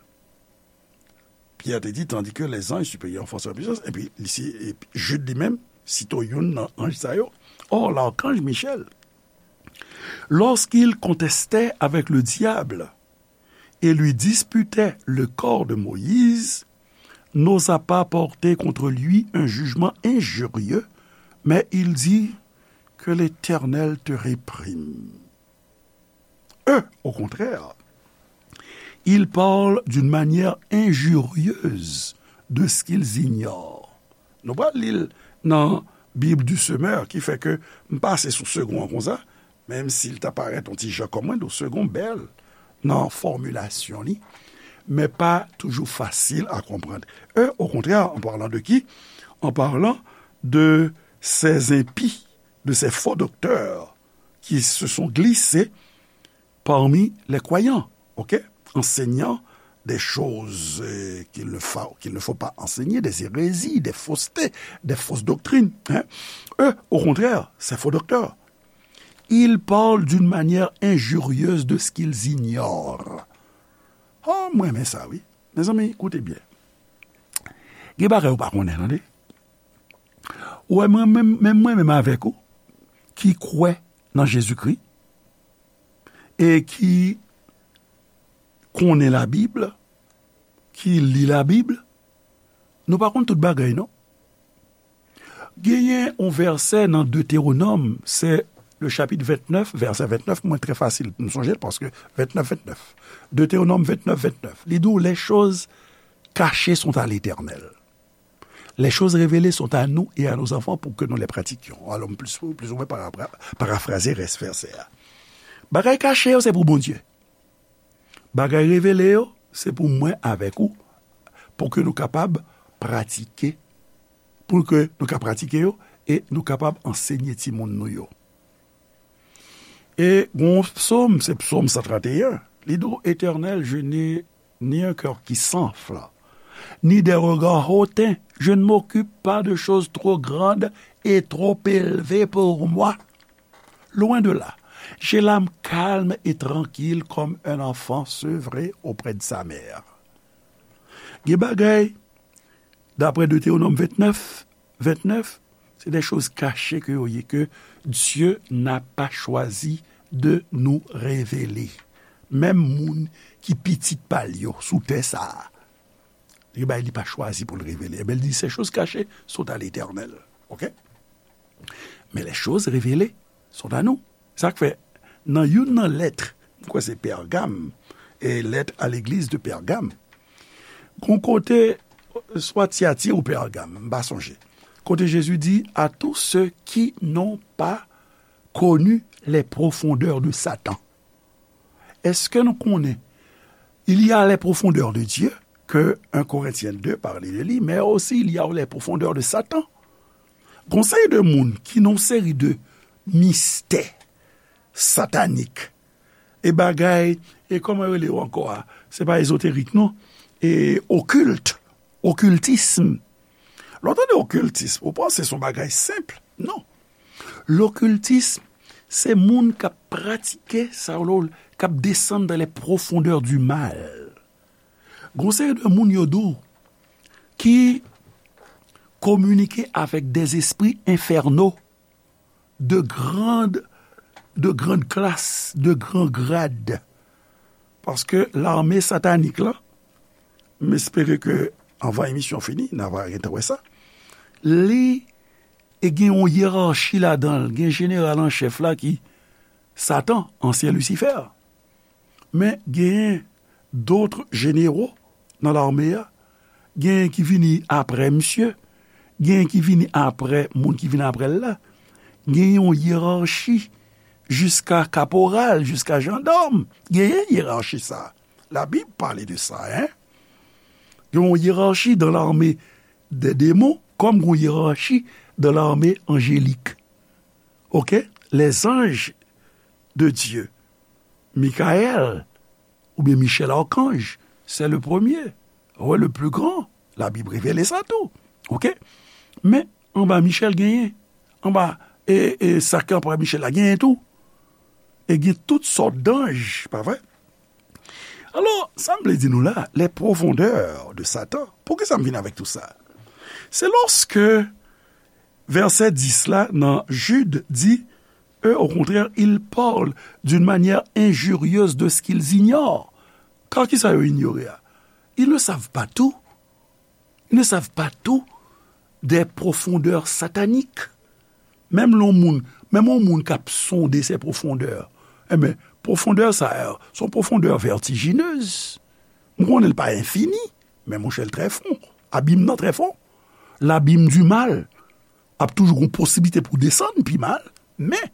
Pierre te di, tandis que les anges supérieurs en force et en puissance, epi li si, epi Jude li menm, site youn nan anj sa yo. Or, l'archange Michel, lorsqu'il contestait avec le diable et lui disputait le corps de Moïse, n'osa pas porter contre lui un jugement injurieux, mais il dit, que l'Éternel te réprime. Eux, au contraire, ils parlent d'une manière injurieuse de ce qu'ils ignorent. Nou pral li l nan Bible du Semeur, ki fè ke m pase sou segon an konsa, menm si l ta parèt yon ti jan kòm mwen, do segon bèl nan fòmilasyon li, men pa toujou fasil a konprann. Eux, au contraire, en parlant de qui? En parlant de ces impies, de ces faux docteurs qui se sont glissés parmi les croyants, ok? Enseignant des choses euh, qu'il ne faut, qu'il ne faut pas enseigner, des hérésies, des faussetés, des fausses doctrines. Hein. Eux, au contraire, ces faux docteurs, ils parlent d'une manière injurieuse de ce qu'ils ignorent. Oh, mwen renmen sa, wi. Mezanmi, koute byen. Gen bagay ou pa konnen, tande. Ou wè, mwen menm, menm mwen menm avèk ou, ki kwè nan Jezikri, e ki konnen Labib, ki li Labib, nou pa konn tout bagay, non. Genyen yon vèsè nan Detewonòm, se le chapitre vingt-neuf, vèsè vingt-neuf, mwen, trè fasil pou m sonje l, paske vingt-neuf, vingt-neuf. Detewonòm vingt-neuf, vingt-neuf. Li di w, les choses cachées sont à l'Éternel. Les choses révélées sont à nous et à nos enfants pour que nous les pratiquions. Alò, m plis, plis ou mwen parapra-, parafraze rès vèsè a. Bagay kache yo, se pou Bondye. Bagay revele yo, se pou mwen avèk ou, pou ke nou kapab pratike, pou ke nou ka pratike yo, e nou kapab ansenye timoun nou yo. E gon psaume, se psaume cent trente et un, li di, Éternel, je n'ai ni un cœur qui s'enfle, ni des regards hautains. Je ne m'occupe pas de choses trop grandes et trop élevées pour moi. Loin de là, j'ai l'âme calme et tranquille comme un enfant sevré auprès de sa mère. Gen bagay, d'après Deutéronome vingt-neuf, vingt-neuf, c'est des choses cachées que yo ye, que Dieu n'a pas choisi de nous révéler. Menm moun ki pitit pa l yo sou tè sa a, li bay, li pa chwazi pou l revele. Ebyen, li di, ces choses cachées sont à l'Éternel. OK? Mais les choses révélées sont à nous. Sa k fè, nan youn nan lèt, m kwè se Pègam, e lèt a legliz de Pègam, gon kote, swa Tiyati ou Pègam, m pa sonje, kote Jezi di, à tous ceux qui n'ont pas connu les profondeurs de Satan. Èske nou konnen, il y a les profondeurs de Dieu, que un Corinthiens deux parle de lui, mais aussi il y a les profondeurs de Satan. Gon seri de moun ki nan yon seri de mistè satanik, e bagay, e kòman yo rele yo ankò a? Se pa ezoterik, non. E okilt, okiltism. Lè w tande okiltism, ou panse se yon bagay senp? Non. Lokiltism, se moun k ap pratike sa, k ap desann dans les profondeurs du mal. Gon seri de moun yo di w ki kominike avèk des esprits infernaux de grande, de grande classe, de grand grade. Paske lame satanik la, m espere ke anvan emisyon fini, n a va gentan wè sa, li e gen yon yerachi ladan l, gen jeneral an chèf la ki Satan, ansyen Lisifè. Men genyen dòt jenero nan lame a, genyen ki vini apre misye, genyen ki vini apre moun ki vini apre l la. Genyen yon yerachi jiska kaporal, jiska jandòm. Genyen yerachi sa. Labib pale de sa, en. Gen yon yerachi dans l'armée des démons, comme une hiérarchie dans l'armée angélique. OK? Les anges de Dieu, Michael, oubyen Michel Archange, c'est le premier, ouais, le plus grand. Labib revele sa tou. OK? Men, anba Michel genyen. Anba, e, e, sa ki anba Michel la genyen tou. E gen tout sòt d'ange, pa vre? Alò, sa m vle di nou la, les profondeurs de Satan. Poukisa m vin avèk tout sa? Se lòske vèsè dis la nan Jid di, eux, au contraire, ils parlent d'une manière injurieuse de ce qu'ils ignorent. Kar kisa yo inyore a? Ils ne savent pas tout. Ils ne savent pas tout des profondeurs sataniques. Menm lè yon moun, menm yon moun k ap sonde ces profondeurs. Enben, pwofondè sa yo, se yon pwofondè vètijinez. M konnen l pa enfini, men monchè, l trè fon. Abim nan trè fon. L'abîme du mal. Ap toujou gon posiblite pou desann pi mal, men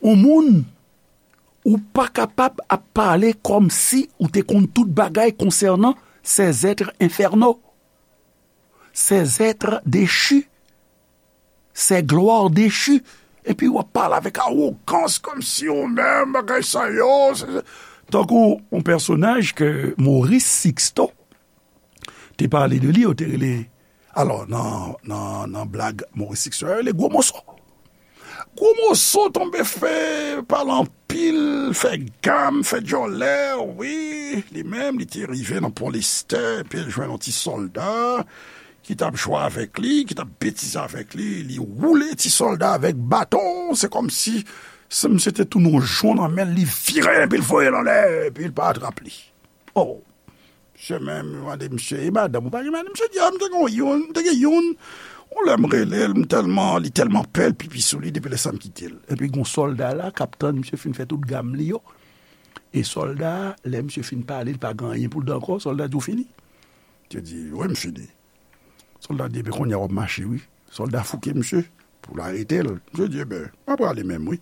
yon moun, ou pa kapab ap pale kòmsi ou te konn tout bagay konsènan ces êtres infernaux, ces êtres déchus, ces gloires déchues. Epi w ap pale avèk awogans, kòmsi ou menm, bagay sa yo, se, se, Tankou yon pèsonaj ke Maurice Sixto te pale de li, yo te rele, alò, nan, nan, nan blag Maurice Sixto, yo rele Gwo Moso. Gwo Moso tonbe fè, pale anpil, fè gam, fè djòlè, wi. Li menm, li te rive nan Pon Lestè, epi l jwenn yon ti sòlda ki t ap jwe avèk li, ki t ap betize avèk li. Li woule ti sòlda avèk baton. Se kòmsi se misye te tounen yon jon nan men l, li vire l, epi l voye l anlè, epi l pa atrap li. Oh! Misye menm, yo mande misye, "E madanm ou pa gen madanm?" Misye di, "A, m te gen youn, m te gen youn. Yon lè m rele l, m tèlman, li tèlman pè, l pipi sou li, depi lè sa m kite l." Epi gon sòlda la k ap tann misye fin fè tout gam li yo. E sòlda a, lè misye fin pale, li pa gen anyen pou l di ankò, sòlda di, "Ou fini?" Misye di, "Wi, m fini." Sòlda di, "Ebyen, kounye a w ap mache, wi." Sòlda fouke misye pou l arete l. Misye di, "Ebyen, m ap prale menm, wi.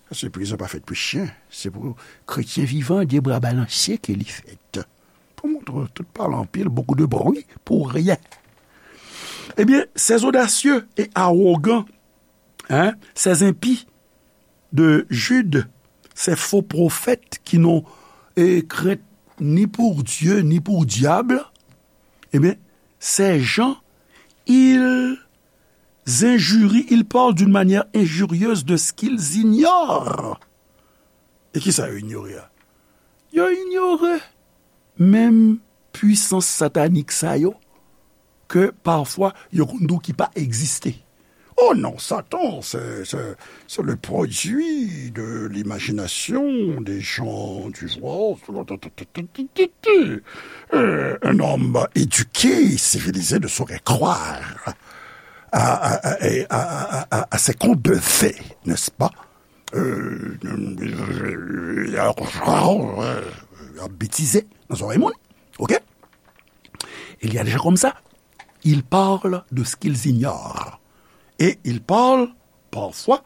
Paske prizon pa fèt pou chen. Se pou kretyen vivan, de bra balanse ke li fèt." Pou montre tout pale anpil, beaucoup de bruit pour rien. Eh bien, ces audacieux et arrogants, hein, ces impies de Jude, ces faux prophètes qui n'ont, eh, crainte ni pour Dieu, ni pour diable, eh bien, ces gens, ils injurient, ils parlent d'une manière injurieuse de ce qu'ils ignorent. E kisa yo inyore a? Yo inyore menm pwisans satanik sa yo, ke pafwa yo konn di w ki pa egziste. Oh non, Satan, c'est, c'est, c'est le produit de l'imagination des gens du jour. Euh, un homme éduqué, civilisé ne saurait croire à, à, à, à, à, à, à ces contes de fées, n'est-ce pas? Euh, ap betize nan zòrèy moun. OK? Il y a des gens comme ça, ils parlent de ce qu'ils ignorent. Et ils parlent parfois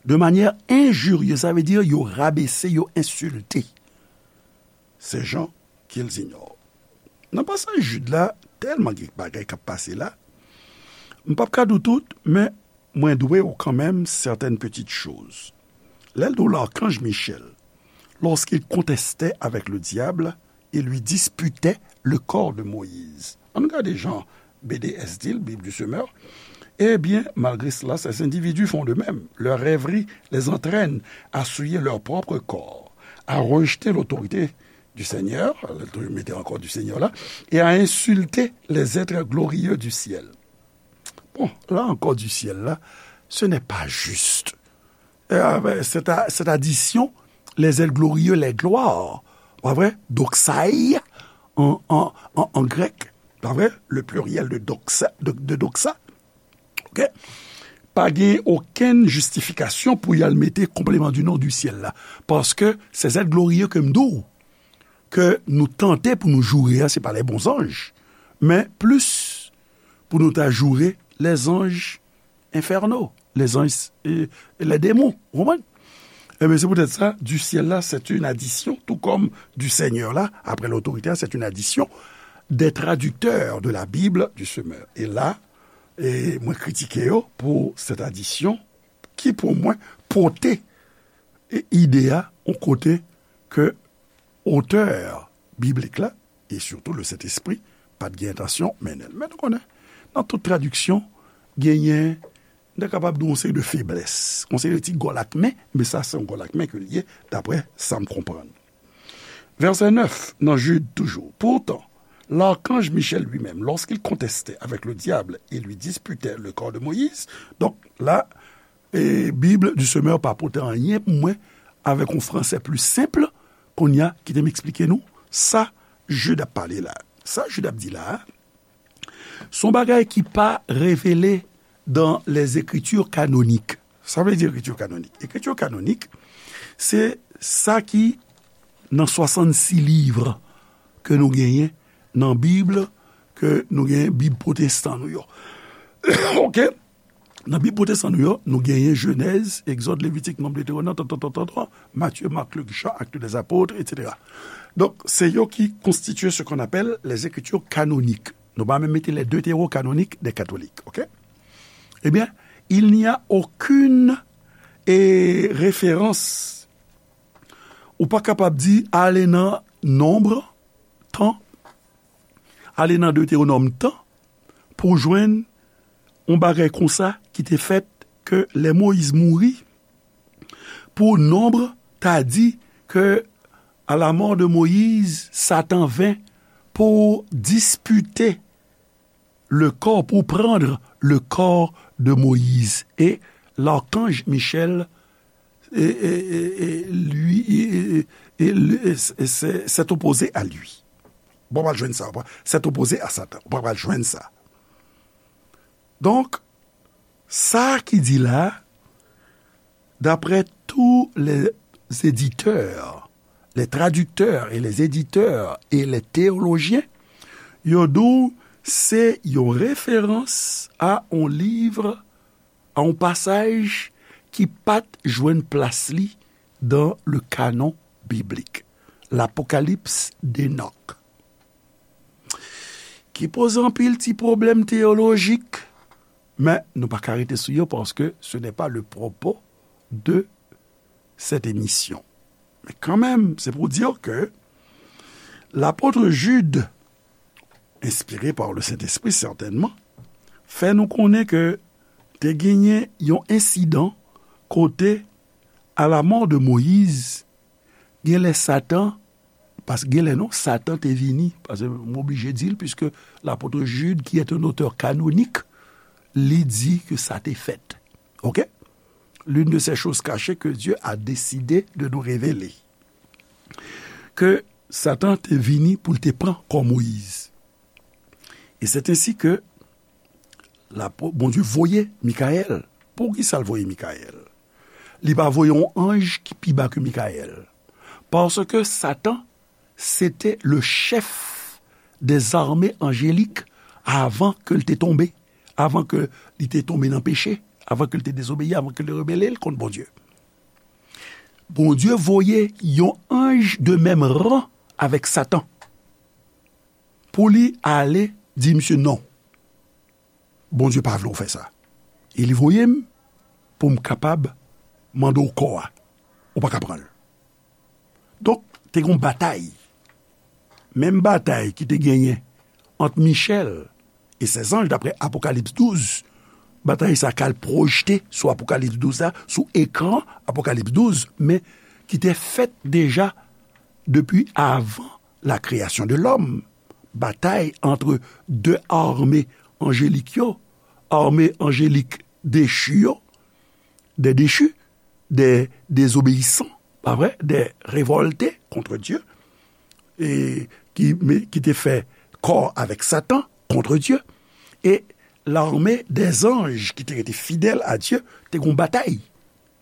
de manière injurieuse, sa vle di yo rabese, yo ensilte. Ces gens qu'ils ignorent. Nan pasaj Jid la, tèlman gen bagay k ap pase la, m p ap ka di w tout, men mwen dwe w kanmenm certaines petites choses. Lè l di w l'archange Michel, lorsqu'il contestait avec le diable et lui disputait le corps de Moïse. Ann gade jan B D S di l, Bible du Semeur. Eh bien, malgré cela, ces individus font de même. Leurs rêveries les entraînent à souiller leur propre corps, à rejeter l'autorité du Seigneur, mete ankò du Seigneur la, et à insulter les êtres glorieux du ciel. Bon, là encore du ciel là, ce n'est pas juste. Euh, cette, cette addition, les êtres glorieux, les gloires, pa vre? Doxai, en, en, en, en grec, pa vre? Le pluriel de doxa, de, de doxa. OK? Pa gen okenn jistifikasyon pou y al mete complément du nom du ciel la. Paske se zèt gloriye ke m di w, ke nou tante pou nou joure a, se pa les bons anges, men plis pou nou ta joure les anges infernaux, les anges, euh, les démons, ou konprann? Ebyen, se poutèt sa, du ciel là, c'est une addition, tout comme du Seigneur là, après l'autorité, c'est une addition des traducteurs de la Bible du Semeur. E la, e mwen kritike yo pou cette addition ki, pou mwen, pote e ide a yon kote ke otè biblik la, e sitou le Sentespri, pa t gen entansyon mennen l. Men nou konnen, nan tout tradiksyon, genyen, nou ta kapab di yon seri de feblès, yon seri de ti gòlakmen, men sa se yon gòlakmen ke l ye, daprè sa m konprann. Verset neuf, nan Jid toujou. Pourtant, l'archange Michel lui-même, lorsqu'il contestait avec le diable et lui disputait le corps de Moïse, donk la, e Bible du Semeur pa pote anyen pou mwen avèk yon fransè pli senp, kounye a, kite m eksplike nou sa Jid ap pale la. Sa Jid ap di la a, se yon bagay ki pa revele dans les écritures canoniques. Sa vle di écriture canonique? Écriture canonique, se sa ki nan swasannsis liv ke nou genyen nan Bib, ke nou genyen Bib pwotestan nou yo. OK? Nan Bib pwotestan nou yo, nou genyen Jenèz, Egzòd, Levitik, Nonb, Detewonòm, tan, tan, tan, tan, tan, Matye, Mak, Lik, Jan, Actes des Apôtres, et cetera. Donk, se yo ki konstitye ce qu'on appelle les écritures canoniques. Nou pa menm mete les deutérocanoniques des catholiques, OK? Eh bien, il n'y a aucune, eh, référence Ou pa kapab di, ale nan Nonb tan, ale nan Detewonòm tan, pou w jwenn yon bagay konsa ki te fèt ke lè Moyiz mouri, pou Nonb ta di ke à la mort de Moïse, Satan vint pour disputer le corps, pour prendre le corps de Moïse. Et l'archange Michel et, et, et, et lui, et, et, et, et, et s'est s'est opposé à lui. Bon, w pral jwenn sa, w pral- s'est opposé à Satan. Bon, w pral jwenn sa. Donk, sa ki di la, d'après tous les éditeurs, les traducteurs et les éditeurs et les théologiens, yo di w se yon referans a yon liv, a yon pasaj ki pa t jwenn plas li dans le canon biblique, l'Apocalypse d'Enoch, ki poze anpil ti pwoblèm teyolojik, men nou pa ka rete sou yo paske ce n'est pas le propos de cette émission. Men kanmenm, se pou di ke lapot Jid, enspire pa le Sentespri sètènman, fè nou konnen ke te genyen yon ensidan kote, à la mort de Moïse, gen lè Satan, paske gen lè non, Satan te vini, paske m oblije di l, puisque l'apôtre Jude, qui est un auteur canonique, li di ke sa te fèt. Ok? L'une de ces choses cachées que Dieu a décidé de nous révéler. Ke Satan te vini pou l te pran kò Moyiz. E c'est ainsi que la, Bondye voye Mikayèl. Poukisa l voye Mikayèl? Li pa voye yon anj ki pi ba ke Mikayèl. Paske Satan, se te le chèf des armées angéliques avan ke l te tonbe, avan ke li te tonbe nan peche, avan ke l te dezobeyi, avan ke l te rebele l kont Bondye. Bondye voye yon anj de menm ran avèk Satan pou li ale di misye non. Bondye pa vle w fè sa. E li voye m pou m kapab mande w kò a. Ou pa ka pran l. Donk, te gen yon batay. Menm batay ki te genyen ant Michèl e sèzanj, daprè Apokalips douz, batay sa ka al pwojte sou Apokalips douz la, sou ekran Apokalips douz, men ki te fèt deja depi avan la création de l'homme. Batay ant de ame anjelik yo, ame anjelik dechi yo, des déchus, des désobéissants, pa vre, des révoltés contre Dieu, e ki, men, ki te fè kò avèk Satan, contre Dieu, e l'armée des anges ki te rete fidèl a Dye, te gon batay.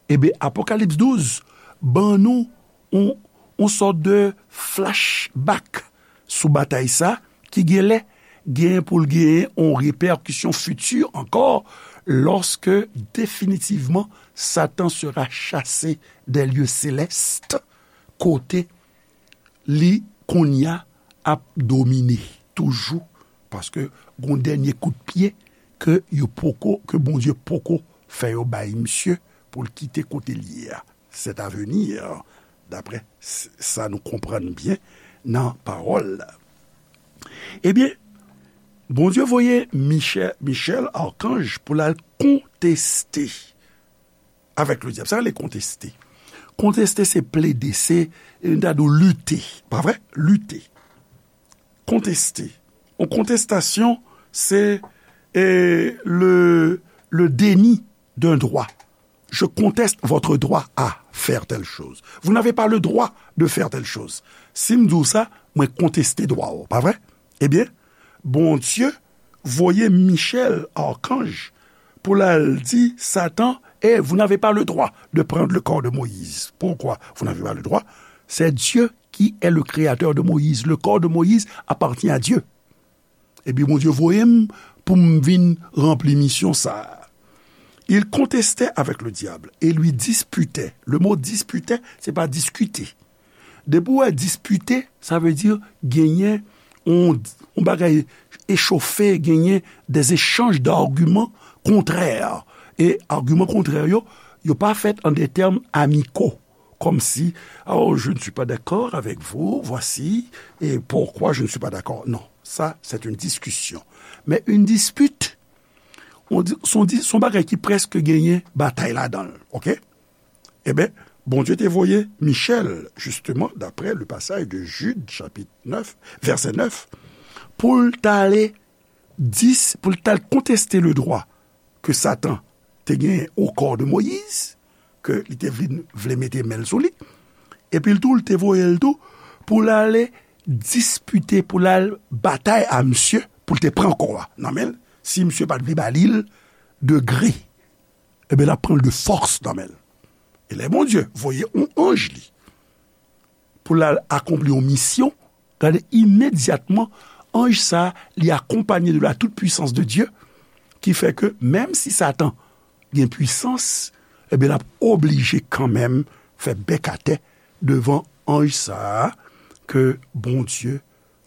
Ebyen, Apokalips douz ban nou yon, yon sòt de flashback sou batay sa ki gen lè gen pou l genyen yon repèkisyon fiti ankò, lòske definitivman Satan sera chassé des lieux célestes, kote li kounye a ap domine toujou, paske gon dènye kout pye ke yo poko, ke Bondye poko fè yo bay misye pou l kite kote l ye a. C'est à venir, daprè s- sa nou konprann byen nan pawòl la. Ebyen, Bondye voye Michè- Michèl, akanj, pou l al konteste avèk le dyab. Sa rele konteste. Konteste, se plede, se, e, nou ta di w lite. Pa vre? Lite. Konteste. Yon kontestasyon, se, e, le, le déni d'un droit. Je conteste votre droit à faire telle chose. Vous n'avez pas le droit de faire telle chose. Si m di w sa, mwen konteste dwa w, pa vre? Ebyen, Bondye voye Michèl, akanj, pou l al di Satan, eh, vous n'avez pas le droit de prendre le corps de Moïse. Pourquoi vous n'avez pas le droit? C'est Dieu qui est le créateur de Moïse. Le corps de Moïse appartient à Dieu. Epi Bondye voye m pou m vin ranpli misyon sa a. Il contestait avec le diable et lui disputait. Le mot disputait, se pa diskite. Depi w wè dispite, sa vle di genyen yon, yon bagay echofe, genyen des échanges d'arguments contraires. E agiman kontrè yo, yo pa fèt an de tèm amiko. comme si, oh, je ne suis pas d'accord avec vous, voici, et pourquoi je ne suis pas d'accord. Non, ça, c'est une discussion. Mais une dispute, on dit, son, di- son bagay ki prèske genyen batay ladan l, ok? Ebyen, Bondye te voye Michèl, justement, d'après le passage de Jude, chapitre neuf, verset neuf, pou l t ale dis, pou l t al konteste le droit ke Satan te genyen au corps de Moïse, ke li te vle, vle mete men l sou li. Epi l tou, l te voye l tou pou l ale dispite, pou l al batay a misye, pou l te pran kò a nan men l, si misye pa t vle ba li l de gré. Ebyen, l ap pran l de fòs nan men l. E lè Bondye voye yon anj li pou l al akonpli yon misyon, gade, imedyatman, anj sa a, li akonpanye de la toute puissance de Dieu, ki fè ke menm si Satan gen pwisans, ebyen, l ap oblije kanmenm fè bèk atè devan anj sa a ke Bondye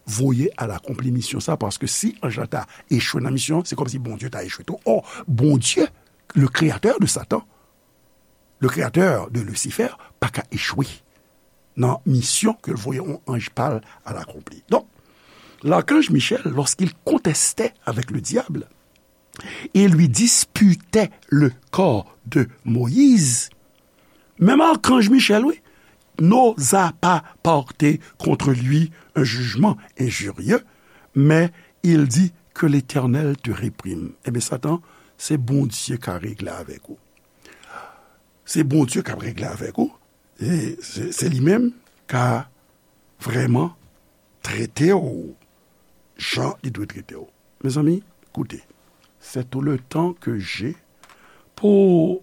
voye al akonpli misyon sa, paske si anj la ta echwe nan misyon, se kòmsi Bondye ta echwe tou. Or, Bondye, le créateur de Satan, le créateur de Lucifer, pa ka echwe nan misyon ke l voye yon anj pa l al akonpli. Donk, l'archange Michel, lorsqu'il contestait avec le diable et lui disputait le corps de Moïse, même archange Michel, oui, n'osa pas porter contre lui un jugement injurieux, mais il dit que l'Éternel te réprime. Ebyen, Satan, se Bondye ka regle avèk ou. Se Bondye k ap regle avèk ou. E se, se li menm ka vrèman trete w jan li dwe trete w. Mezanmi, koute, c'est tout le temps que j'ai pour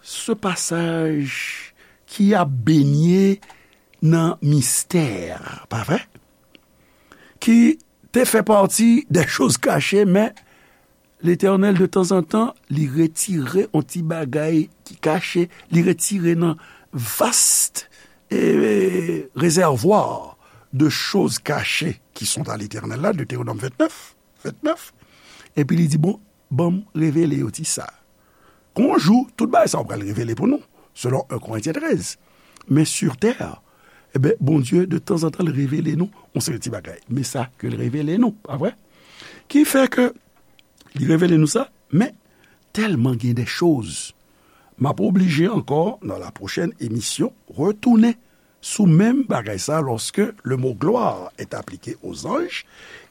ce passage ki ap benyen nan mistè, pa vre? Ki te fè pati des choses cachées, men Letènèl, de tanzantan, li retire yon ti bagay ki kache, li retire nan vast, e, rezèvwa de choz kache ki sont à l'Éternel la, Deutéronome vingt-neuf, vingt-neuf, epi li di, bon, ban m revele yo ti sa. Gon jou, tout bagay sa yo pral revele pou nou, selon un Korentyen trèz. Men sur terre, ebyen, Bondye, de tanzantan, l revele nou yon seri ti bagay. Men sa ke l revele nou, pa vre? Ki fè ke li revele nou sa, men tèlman gen de choz, m ap oblije ankò, nan la pwochèn emisyon, retounen sou menm bagay sa, lorsque le mot gloire est appliqué aux anges,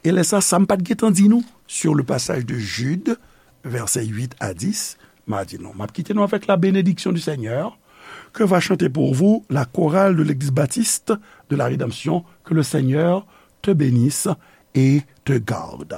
e lè sa, sa m pa t gentan di nou, sur le passage de Jude, versets huit à dix, m a di nou, m ap kite nou avec la bénédiction du Seigneur, que va chanter pour vous la chorale de l'Église baptiste de la Rédemption, que le Seigneur te bénisse et te garde.